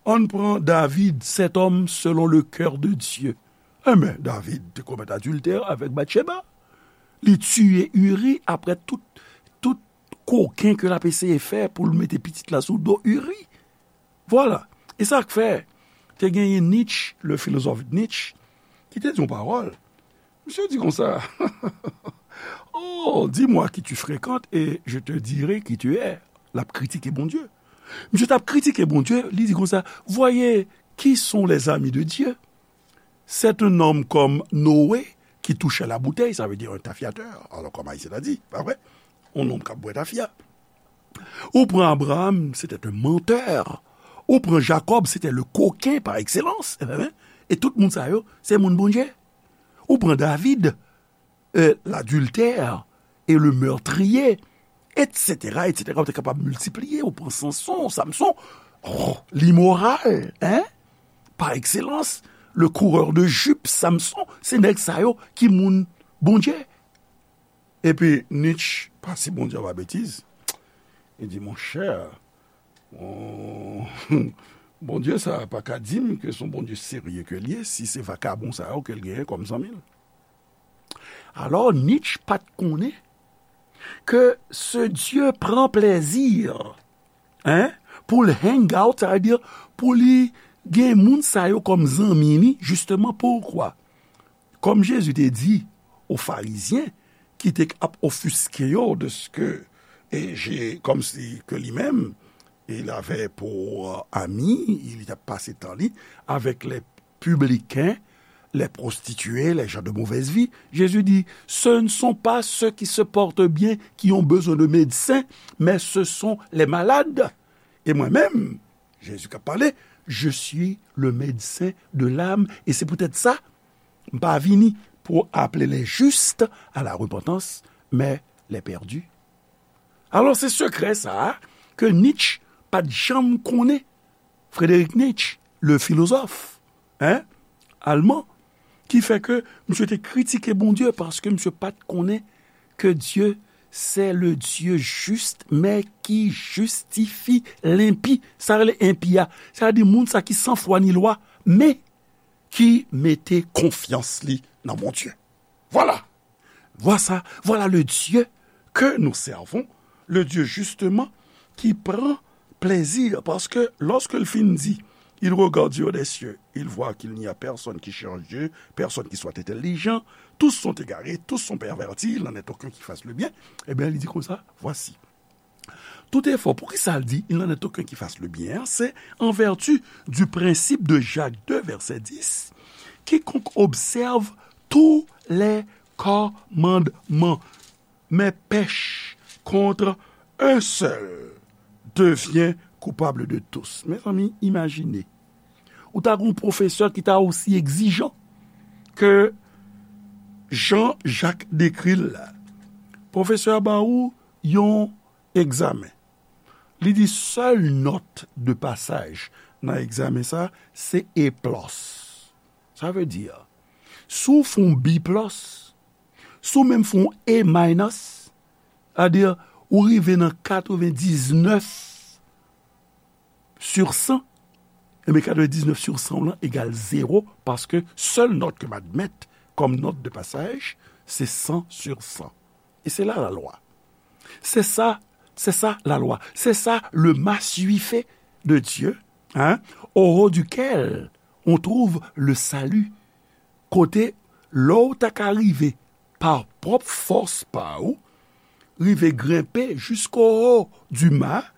Ann pran David, cet homme selon le cœur de Dieu. Enben, David te komèt adiltè avèk Batcheba. Li tiye Uri apre tout, tout koken ke l ap eseye fè pou l mete pitit la sou do Uri. Vwala. E sa k fè, te genyen Nietzsche, le philosophe Nietzsche, ki te di yon pawòl. Misye di konsa, oh, dis-moi qui tu fréquentes et je te dirai qui tu es. L ap kritike Bondye. Misye t ap kritike Bondye, li di konsa, voyez qui sont les amis de Dieu. C'est un homme comme Noé qui touchait la bouteille, ça veut dire un tafyateur. Alors, comme Haïtien a dit, pa vre? Un homme k ap bwè tafya. Ou pran Abraham, c'était un menteur. Ou pran Jacob, c'était le coquin par excellence. E tout moun sa yo, se moun Bondye. Ou pran David, euh, l'adultère et le meurtrier, et cetera, et cetera. Ou te kapab miltipliye, ou pran Samson, Samson, oh, limoral, hein? Par excellence, le coureur de jupe, Samson, se nèg sa yo ki moun Bondye. Epi Nietzsche, pa si Bondye pa betiz, li di, monchè, bon, Bondye sa pa ka di m ke se yon Bondye serye ke l ye, si se vakabon sa yo ke l genyen kòm zanmi l. Alò, Nietzsche pa t konnen ke ce Dieu prend plaisir, hein, pou l hang out, sa vle di pou li gen moun sa yo kòm zanmi li, justement, pourquoi? Kòm Jezi te di aux Pharisiens, ki te ap ofiske yo de ce que, et j'ai, comme si que lui-même, il avait pour, euh, ami, il a passé tan li avec les publicains, les prostituées, les gens de mauvaise vie. Jésus dit, ce ne sont pas ceux qui se portent bien qui ont besoin de médecins, mais ce sont les malades. Et moi-même, Jezi k ap pale, je suis le médecin de l'âme, et c'est peut-être ça, m pa vini pour appeler les justes à la repentance, mais les perdus. Alò, se sekrè sa a ke Nietzsche pa t janm konnen. Frédéric Nietzsche, le philosophe, hein, allemand, ki fè ke misye te kritike Bondye paske misye pa t konnen ke Dye se le Dye jis, men ki jistifye lenpi. Sa rele enpi a, sa vle di moun sa ki san fwa ni lwa, men ki mete konfyans li nan Bondye. Vwala. Vwala, vwala le Dieu que nous servons, le Dieu justement qui prend plaisir, parce que lorsque le fin dit, il regarde du haut des cieux, il voit qu'il n'y a personne qui cherche Dieu, personne qui soit intelligent, tous sont égarés, tous sont pervertis, il n'en est aucun qui fasse le bien, eh bien, il dit comme ça, voici. Tout effort, poukisa l di, il n'en est aucun qui fasse le bien, c'est en vertu du principe de Jacques deux, verset dix, quiconque observe tous les commandements, mais pèche contre un seul devient coupable de tous. Mezanmi, imajine. Ou ta gen yon pwofesè ki ta osi egzijan ke jan Jak dekri l la. Pwofesè a ba ou yon egzamen. Li di sèl nòt de pasaj nan egzamen sa, se A plus. Sa vle di, si w fè yon B plus, si w menm fè yon A minus, sa vle di, ou rive nan katrevendiznèf sur san, enben, katrevendiznèf sur san w lan egal zewo, paske sèl nòt ke m admèt kòm nòt de pasaj, se san sur san. E se la la lwa. C'est ça, c'est ça la loi. C'est ça le massuife de Dieu, hein, au haut duquel on trouve le salut. Kote, lè w ta ka rive pa pwòp fòs pa ou, rive grenpe jusqu'au haut du mât,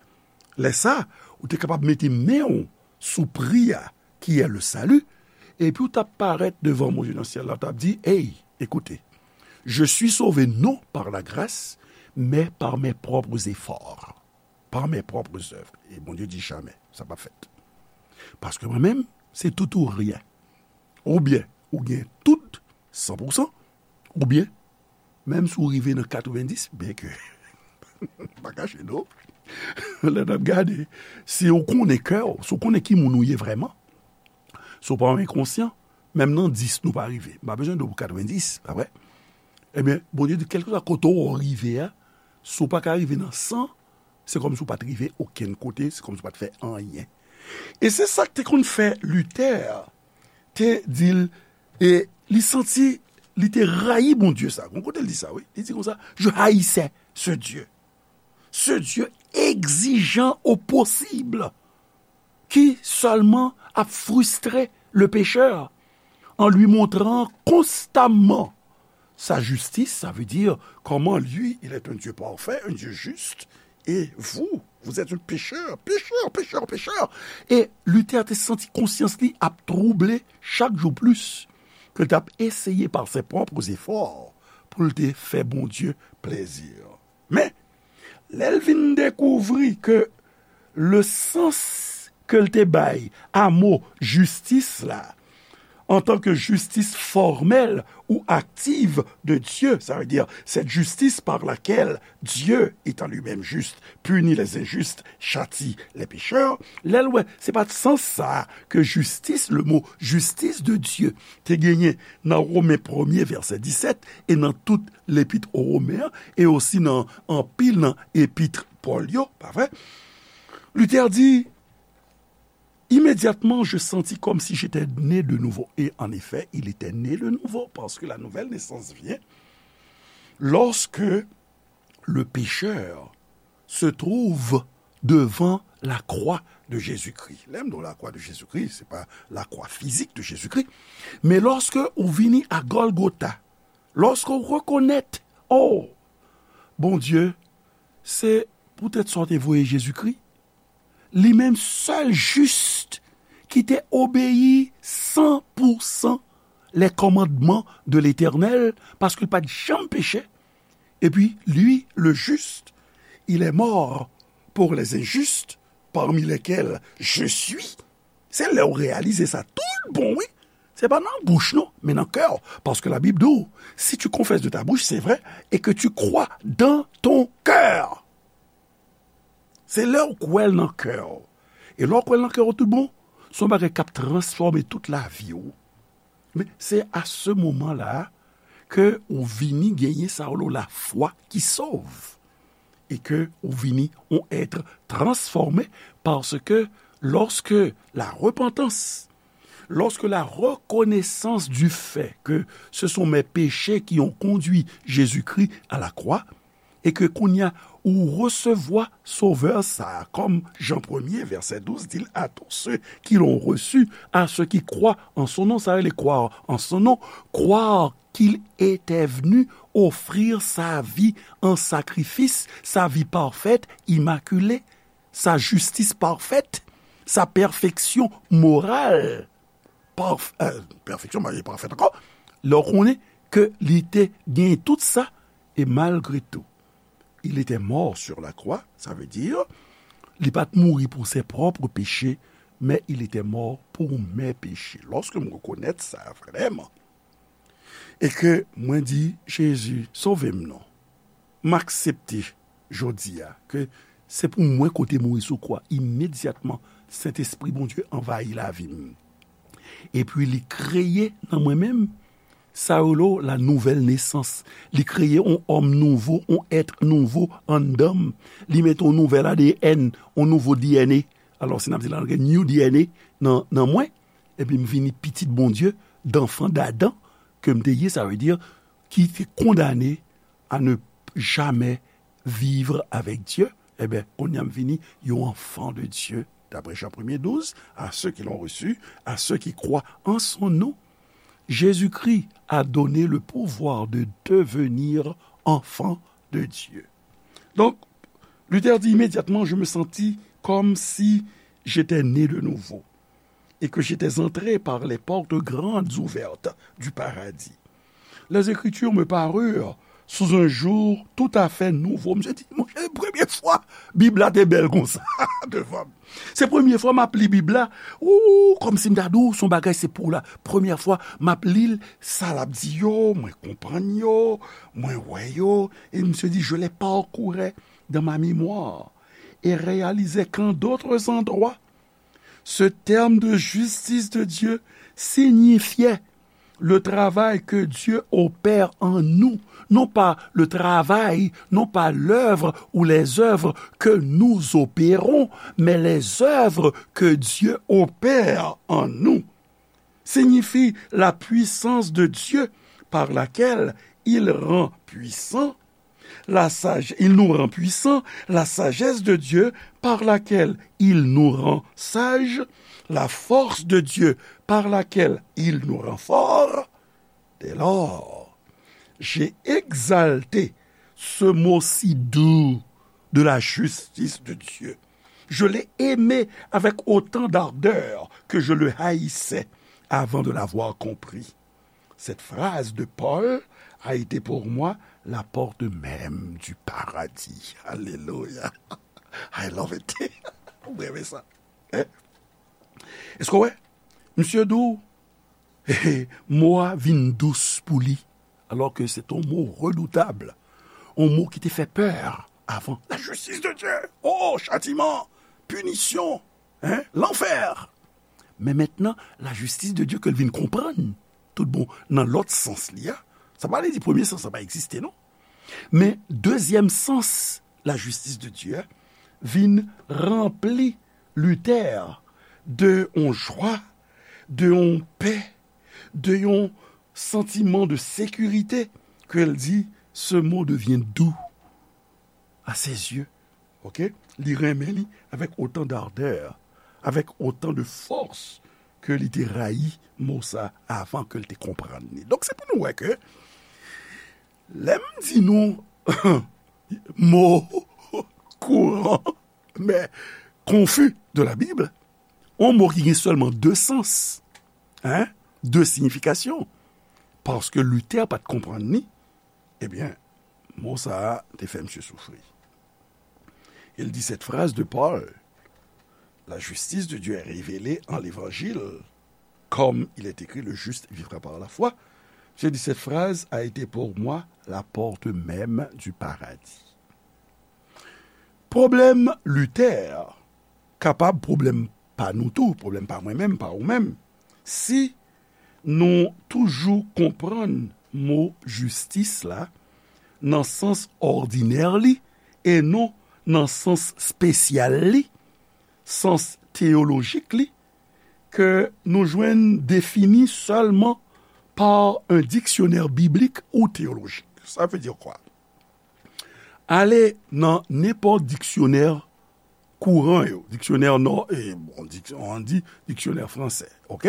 lè sa, ou te kapab mete men w sou pri a, qui est le salut, epi w t ap parèt devan Bondye nan syèl la, w t ap di, hey, écoutez, je suis sauvé non par la grâce, mais par mes propres efforts, par mes propres œuvres. E Bondye di, jamè, sa p ap fèt. Paske mwen menm, se tout ou ryen. Oubyen, ou gen tout, san pou san, oubyen, menm si w rive nan katrevenndis, byen ke, pa kache non, lè n ap gade, si w konnen kè w, si w konnen ki moun ou ye vrèman, si w pa yon enkonsyan, menm nan dis nou pa rive. M pa bezwen di w pou katrevenndis, pa vre? Ebyen, Bondye di, kèlkeswa kote w rive a, si w pa ka rive nan san, se kòmsi w pa t rive okenn kote, se kòmsi w pa t fè anyen. E se sa k te konn fè Luther te di l, e li santi, li te rayi Bondye sa. Gon kote l di sa, wi. Li di konsa, je haïssais ce Dieu. Ce Dieu exigeant au possible, qui seulement a frustré le pécheur en lui montrant constamment sa justice, ça veut dire comment lui, il est un Dieu parfait, un Dieu juste, et vous, vous êtes un pécheur, pécheur, pécheur, pécheur. E Luther te santi konsyans li ap twouble chak jou plis, ke l t ap eseye par ses propres efforts pou l te fè Bondye plezi. Men, lè l vin dekouvri ke le sans ke l te bay a mo jistis la, en tant que justice formelle ou active de Dieu, ça veut dire cette justice par laquelle Dieu, étant lui-même juste, punit les injustes, châtie les pécheurs, lè l wè se pa t sans sa ke jistis, le mot justice de Dieu, te genyen nan Women premye vèsè disèt e nan tout lepit o Women an, e osi nan anpil nan epit Pòl yo, pa vre? Luther di, immédiatement, je sentis comme si j'étais né de nouveau. Et en effet, il était né de nouveau, parce que la nouvelle naissance vient lorsque le pécheur se trouve devant la croix de Jésus-Christ. Lè m di w la kwa de Jezikri, se pa la kwa fizik de Jezikri, men lòske ou vini a Gòlgota, lòske ou rekonèt, oh, Bondye, se poutèt sa w te voye Jezikri, li menm sèl jis ki te obeyi san pou san les commandements de l'Éternel, paske l pa t janm peche. Et puis, lui, le juste, il est mort pour les injustes, parmi lesquels je suis. Se lè w reyalize sa tout bon, wi. Se pa nan bouch, non, men nan kè w. Paske Labib di w, si tu confesses de ta bouche, c'est vrai, et que tu crois dans ton cœur. Se lè w kwè l nan kè w. E lè w kwè l nan kè w tout bon, se yon bagay k ap transfòme tout lavi w. Men se a se moman la ke ou vini genyen sa yo rele lafwa ki sove. E ke ou vini yon être transformé, parce que lorsque la repentance, lorsque la reconnaissance du fait que ce sont mes péchés qui ont conduit Jésus-Christ à la croix, e ke kounye a ou resevwa Sovè sa a, kòm Jan premye, vèsè douz, di l, à tous ceux qui l'ont reçu, à ceux qui croient en son nom, sa rele croire en son nom, croire qu'il était venu offrir sa vie en sacrifice, sa vie parfaite, immaculée, sa justice parfaite, sa perfection morale. Parf-, euh, perfection, marié parfaite encore. Lè w konnen ke li te gen tout sa, e malgre tou, il était mort sur la croix, ça veut dire, li pa t mouri pou ses propres péchés, mais il était mort pour mes péchés. Lòske m rekonèt sa vrèman, e ke mwen di, Jezi, sove m non. M aksepte jodi a ke se pou mwen ke w te mouri sou kwa. Imedyatman, Sentespri Bondye anvayi lavi m. Epi li kreye nan mwen menm sa yo rele la nouvelle naissance. Li kreye yon òm nouvo, yon èt nouvo anndan m. Li mete yon nouvèl A D N, yon nouvo D N A. Alò, si n ap di la, gen new D N A nan, nan mwen. Epi m vini pitit Bondye, d'enfant d'Adam, ke m te ye, sa vle di, ki te kondane à ne jamais vivre avec Dieu, ebyen, kounye a m vini yon enfant de Dieu, d'après Jean premye douz, à ceux qui l'ont reçu, à ceux qui croient en son nom. Jésus-Christ a donné le pouvoir de devenir enfant de Dieu. Donc, Luther dit, immédiatement, je me sentis comme si j'étais né de nouveau et que j'étais entré par les portes grandes ouvertes du paradis. Les Écritures me parurent sous un jour tout à fait nouveau. Misye di, monchè, premye fwa Bib la te bèl konsa devan m. Se premye fwa m ap li Bib la. Ou, kòmsi m ta di w, se yon bagay se pou la. Premye fwa m ap li l, sa l ap di yo, mwen konprann yo, mwen wè yo. Et misye di, je les parcourais dans ma mémoire et réalisais qu'en d'autres endroits, ce terme de justice de Dieu signifiait le travail que Dieu opère en nous, non pas le travail, non pas l'œuvre ou les œuvres que nous opérons, mais les œuvres que Dieu opère en nous, signifie la puissance de Dieu par laquelle il rend puissant la sagesse, il nous rend puissants, la sagesse de Dieu par laquelle il nous rend sages, la force de Dieu par laquelle il nous rend forts. Dès lors, j'ai exalté ce mot si doux de la justice de Dieu. Je l'ai aimé avec autant d'ardeur que je le haïssais avant de l'avoir compris. Cette phrase de Paul a été pour moi la porte même du paradis. Alléluia. I love it. Mwen renmen sa. Hein? Èske w wè? Misye di w, mo a vin dous pou li, alors que c'est un mot redoutable, un mot qui te fait peur avant. La justice de Dieu. Oh, châtiment, punition, hein, l'enfer. Men mentnan, la justice de Dieu ke l vin konprann, tout bon, nan lòt sans li a, sa pa vle di premye sans la pa egziste, non. Men dezyèm sans la justice de Dieu a vin ranpli Luther de yon jwa, de yon pè, de yon santiman de sekirite ke l di, ce mot devient doux à ses yeux. Ok? Li renmen li avec autant d'ardeur, avec autant de force ke li te rayi mo sa avan ke l te konprann li. Donk, se pou nou wè ke lè m di nou mo kouran, men konfi de la Bib, yon mo ki gen sèlman de sans, hein, de siyifikasyon, paske Luther pa t konprann li, ebyen, mo sa a te fè misye soufri. Il dit cette phrase de Paul, la justice de Dieu est révélée en l'évangile, comme il est écrit, le juste vivra par la foi. Misye di, cette phrase a été pour moi la porte même du paradis. Pwoblèm Luther kapab pwoblèm pa nou tou, pwoblèm pa mwen menm, pa ou menm. Si nou toujou konprann mo jistis la nan sans òdinè li e non nan sans espesyal li, sans teyolojik li, ke nou jwenn defini sèlman par un dictionnaire biblique ou théologique. Ça veut dire quoi? Ale nan nenpòt diksyonè kouran yo, diksyonè nò, e, bon, dik-, on di diksyonè fransè, ok?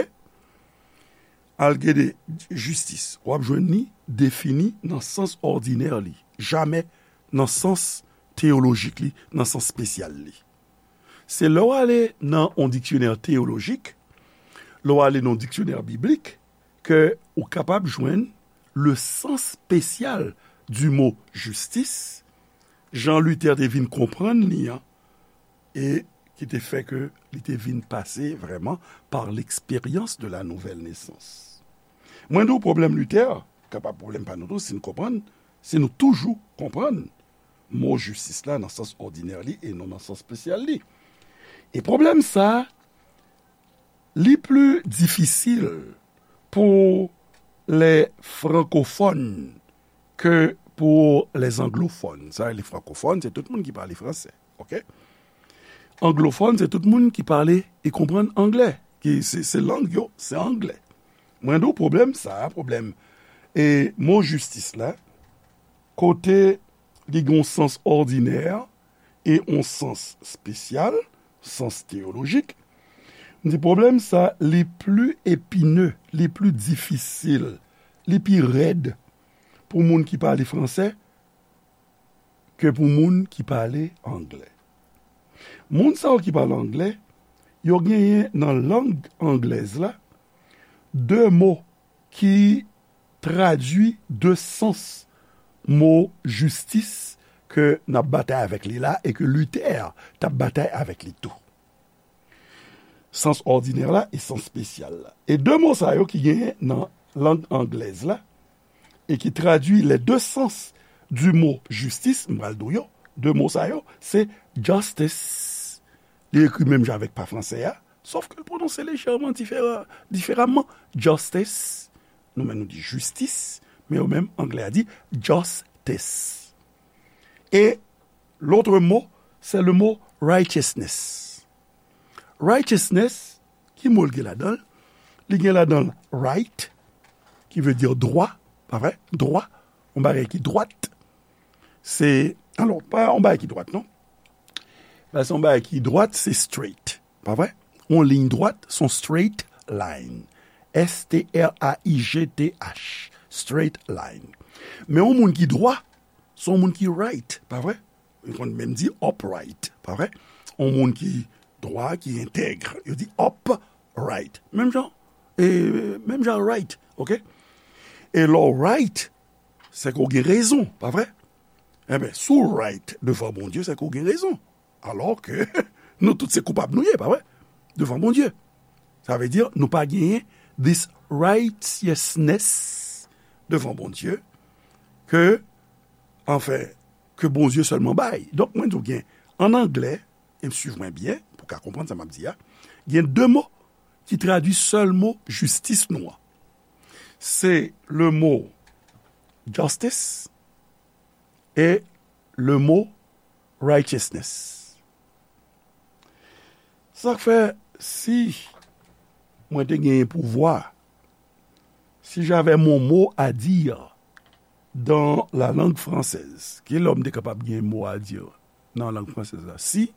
Al gade jistis, w ap jwenn li defini nan sans òdinè li, jamè nan sans teyolojik li, nan sans espesyal li. Se lè w ale nan on diksyonè teyolojik, lè w ale nan on diksyonè biblik, ke ou kapab jwenn le sens spécial du mot justice, jan Luther te vin konprann li an, e ki te fè ke li te vin pase vrèman par l'expérience de la nouvelle naissance. Mwen di w pwoblèm Luther, kapab pwoblèm pa nou tou, si nou konprann, si nou toujou konprann mo jistis la nan sans òdinè li e non nan sans espesyal li. E pwoblèm sa, li pli difisil pou lè frankofòn ke pou lè anglofòn. Sa, lè frankofòn, se tout moun ki pale fransè, ok? Anglofòn, se tout moun ki pale e konprann anglè. Ki se, se lang yo, se anglè. Mwen di w pwoblèm sa, pwoblèm, e mo jistis la, kote li gen yon sans òdinè e yon sans espesyal, sans teyolojik. M di pwoblèm sa, li pli epine, li pli difisil, li pi rèd pou moun ki pale fransè ke pou moun ki pale anglè. Moun sa yo ki pale anglè, yo genyen nan lang anglèz la de mo ki tradui de sans mo jistis ke n ap batay avèk li la e ke Luther t ap batay avèk li tou. Sans òdinè la e sans espesyal la. E de mo sa yo ki genyen nan lang anglèz la, e ki tradui les deux sens du mot justice, m pral di w yo, de mo sa yo, se justice. Li ekri menm jan avèk pa fransè a, sòf ke l pwononse lejèman difera-, diferaman. Justice, nou menm nou di jistis, men yo menm, anglè a di justice. E l'autre mot, c'est le mot righteousness. Righteousness, ki mo l gen ladan l? Li gen ladan l right, ki vle di dwa, pa vre? Dwa, yon bagay ki dwat. Se, alò, pa yon bagay ki dwat, non. Paske yon bagay ki dwat, se straight, pa vre? Yon liy dwat, se yon straight line. S T R A I G T H, straight line. Men yon moun ki dwa, se yon moun ki right, pa vre? Yo konn menm di upright, pa vre? Yon moun ki dwa, ki entèg, yo di upright. Menm jan, e, menm jan right, oke? E lè w right, se ke w gen rezon, pa vre? Enben, si w right devan Bondye, se ke w gen rezon. Alò ke nou tout se koupab nou ye, pa vre? Devan Bondye. Sa vle di, nou pa genyen this righteousness devan Bondye ke, anfen, ke Bondye sèlman bay. Donk, mwen di w gen, an anglè, e m swiv mwen byen, pou w ka konprann sa m ap di a, gen de mo ki tradui sèl mo jistis nou an. Se le mo justice e le mo righteousness. Sa k fè, si mwen te genyen pouvwa, si j'avais mon mot à dire dans la langue française, ki lè m te kapab gen mo a di nan lang fransèz la? Si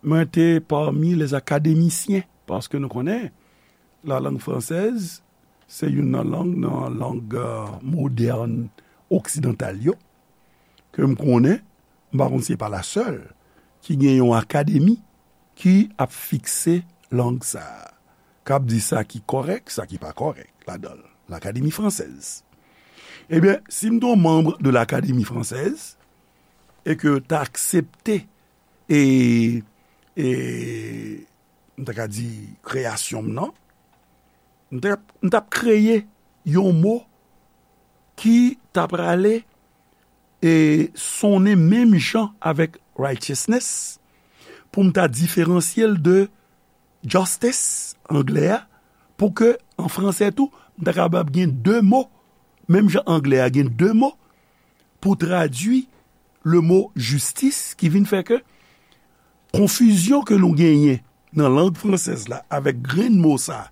mwen te parmi les académiciens, paske nou konnen, la langue française, se youn nan lang, nan lang, euh, modèn oksidantal yo, ke m konnen, m pa konn si se pa la sèl, ki gen yon akademi ki ap fikse lang sa a, k ap di sa ki kòrèk, sa ki pa kòrèk ladan l, l'Académie française. Ebyen, si m te yon manm de l'Académie française, e ke w ta aksepte, e, e, m ta ka di, kreyasyon m nan, m t ap, m t ap kreye yon mo ki ta prale e sonnen menm jan avèk righteousness, pou m ta diferansye l de justice, anglè a, pou ke, an fransè tou, m ta kapab gen de mo, menm jan anglè a gen de mo, pou tradui le mo justice, ki vin fè ke konfizyon ke nou genyen nan lang fransèz la avèk grenn mo sa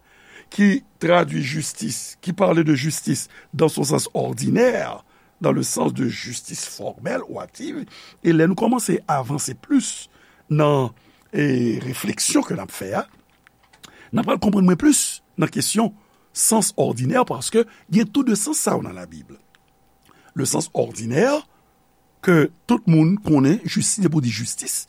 ki tradui jistis, qui parle de justice dans son sens ordinaire, dans le sens de justice formelle ou active, e lè nou kòmanse avanse plis nan, e, refleksyon ke n ap fè a, n ap pral konprann mwen plis nan kesyon sans òdinè, paske gen tou de sans sa yo nan Labib. Le sens ordinaire, ke tout moun konnen, jistis, depi w di jistis,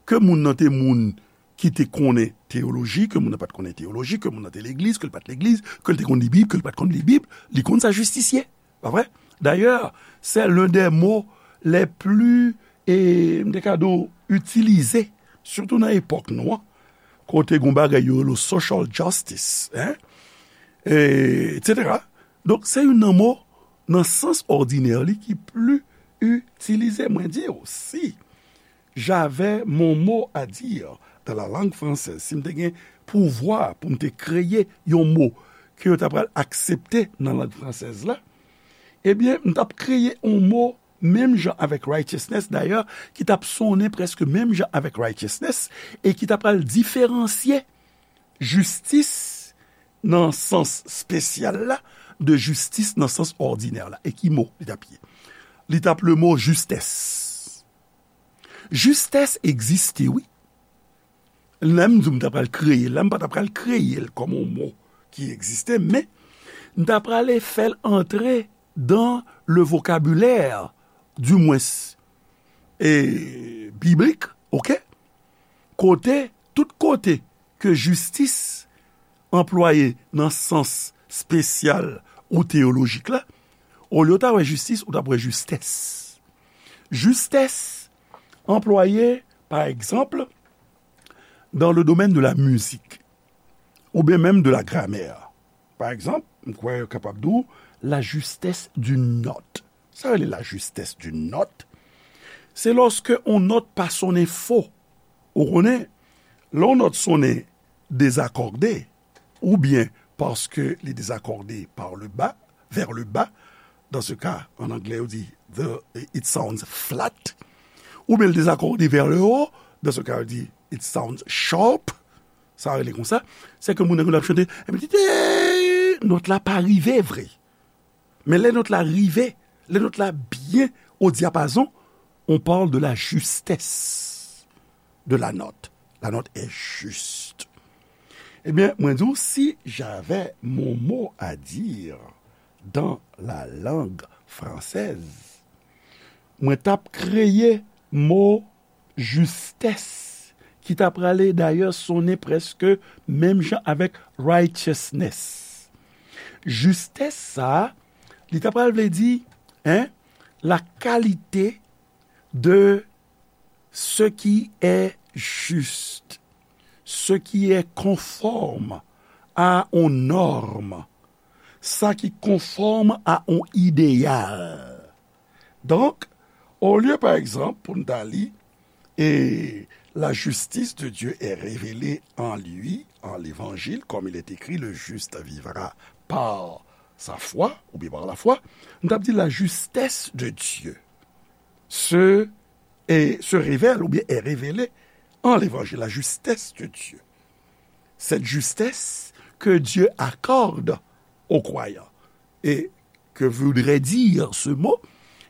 ke moun nan te moun ki te konnen teyoloji, ke moun nan pa t konnen teyoloji, ke moun nan te legliz, ke l pa t legliz, ke l te konn li Bib, ke l pa t konn li Bib, li konn sa jistis ye. Pa vre? Dayè, c'est l'un des mots les plus, e, m te ka di w, itilize, sitou nan epòk nou an, kote gen yon bagay yo rele social justice, hein? E, et cetera. Donk, se youn nan mo, nan sans òdinè li, ki pli itilize. Mwen di w, si j'avais mon mot à dire dans la langue française, si m te gen pouvwa pou m te kreye yon mo ke yo ta pral aksepte nan lang fransèz la, ebyen, m t ap kreye yon mo menm jan avèk righteousness, dayè, ki t ap sonnen prèske menm jan avèk righteousness, e ki t ap pral diferansye jistis nan sans espesyal la de jistis nan sans òdinè la. E ki mo li t ap ye? Li t ap le mo justesse. Justesse egziste, wi. Lè m di w m ta pral kreye l la, m pa ta pral kreye l kòm yon mo ki egziste, men m ta prale fè l antre dans le vocabulaire, du moins, e, biblik, oke? Kote, tout kote ke jistis anplwaye nan sans espesyal ou teyolojik la, Olye w ta wè jistis, ou t ap wè jistès. Jistès anplwaye, pa egzanp, dans le domaine de la musique, ou bien même de la grammaire. Pa egzanp, m kwè yo kapab di w la justesse d'une note. Sa rele la justesse d'une note? Se lòske yon nòt pa sonnen fo. Ou konnen, lè yon nòt sonnen dezakòde, ou bien paske li dezakòde par le bas, vers le bas, dans ce cas, en anglais, on dit the, it sounds flat, ou bien li dezakòde vers le haut, dans ce cas, on dit it sounds sharp, sa rele konsa, se ke moun nan ap chante, epi ti, nòt la pa rive vre. Men lè nòt la rive, lè nòt la byen o dyapazon, on parle de la justesse de la note. La note est juste. Ebyen, mwen di w, si j'avais mon mot à dire dans la langue française, mwen t ap kreye mo jistès, ki ta prale dayè sonnen prèske menm jan avèk righteousness. Jistès sa a, li ta pral vle di, hein, la qualité de ce qui est juste, ce qui est conforme à une norme, sa ki konfòm a yon ideyal. Donk, olye, pa egzanp, pou n ta li, et la justice de Dieu est révélée en lui, en l'évangile, comme il est écrit, le juste vivra par sa foi, ou bien par la foi, nou t ap di la justesse de Dieu se, et se révèle, ou bien est révélée en l'évangile, la justesse de Dieu. Cette justesse que Dieu accorde aux croyants. Et que voudrait dire ce mot,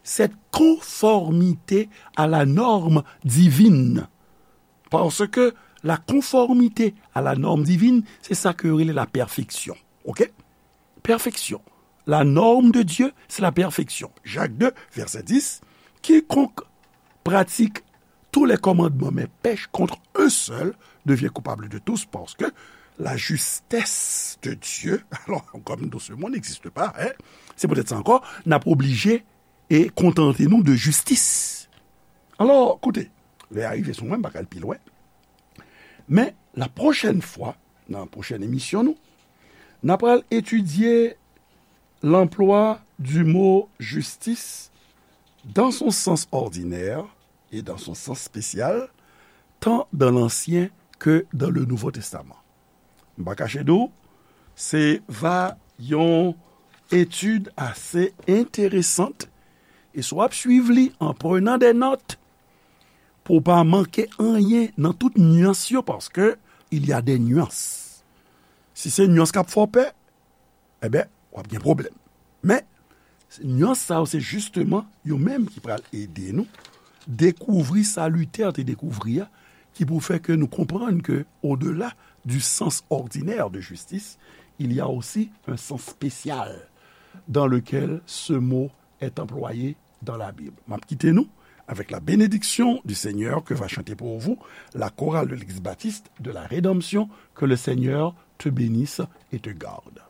cette conformité à la norme divine. Parce que la conformité à la norme divine, c'est ça que rele la perfection. OK? Perfection. La norme de Dieu, c'est la perfection. Jacques deux, verset dix, quiconque pratique tous les commandements mais pèche contre un seul devient coupable de tous, parce que la justesse de Dieu, alors, comme dans ce monde n'existe pas, hein, c'est peut-être ça encore, n ap oblije e kontante nou de jistis. Alò, koute, lè a rive sou mwen, m pa ka al pi lwen. Men, la pwochèn fwa, nan pwochèn emisyon nou, n ap al etidye l'emploi du mot justice dans son sens ordinaire et dans son sens spécial, tant dans l'Ancien que dans le Nouveau Testament. M pa kache di w, se va yon etid ase enteresant, e si w ap swiv li en prenant des notes, pou w pa manke anyen nan tout nyans yo, paske il y a des nuances. Si se nyans k ap fè w pè, enben, w ap gen pwoblèm. Men, nyans sa yo, se jisteman yo menm ki pral ede nou dekouvri sa Luther te dekouvri a, ki pou fè ke nou konprann ke, au-delà du sens ordinaire de justice, il y a aussi un sens spécial dans lequel ce mot est employé dans la Bible. M ap kite nou avec la bénédiction du Seigneur que va chanter pour vous la chorale de l'Église baptiste de la Rédemption. Que le Seigneur te bénisse et te garde.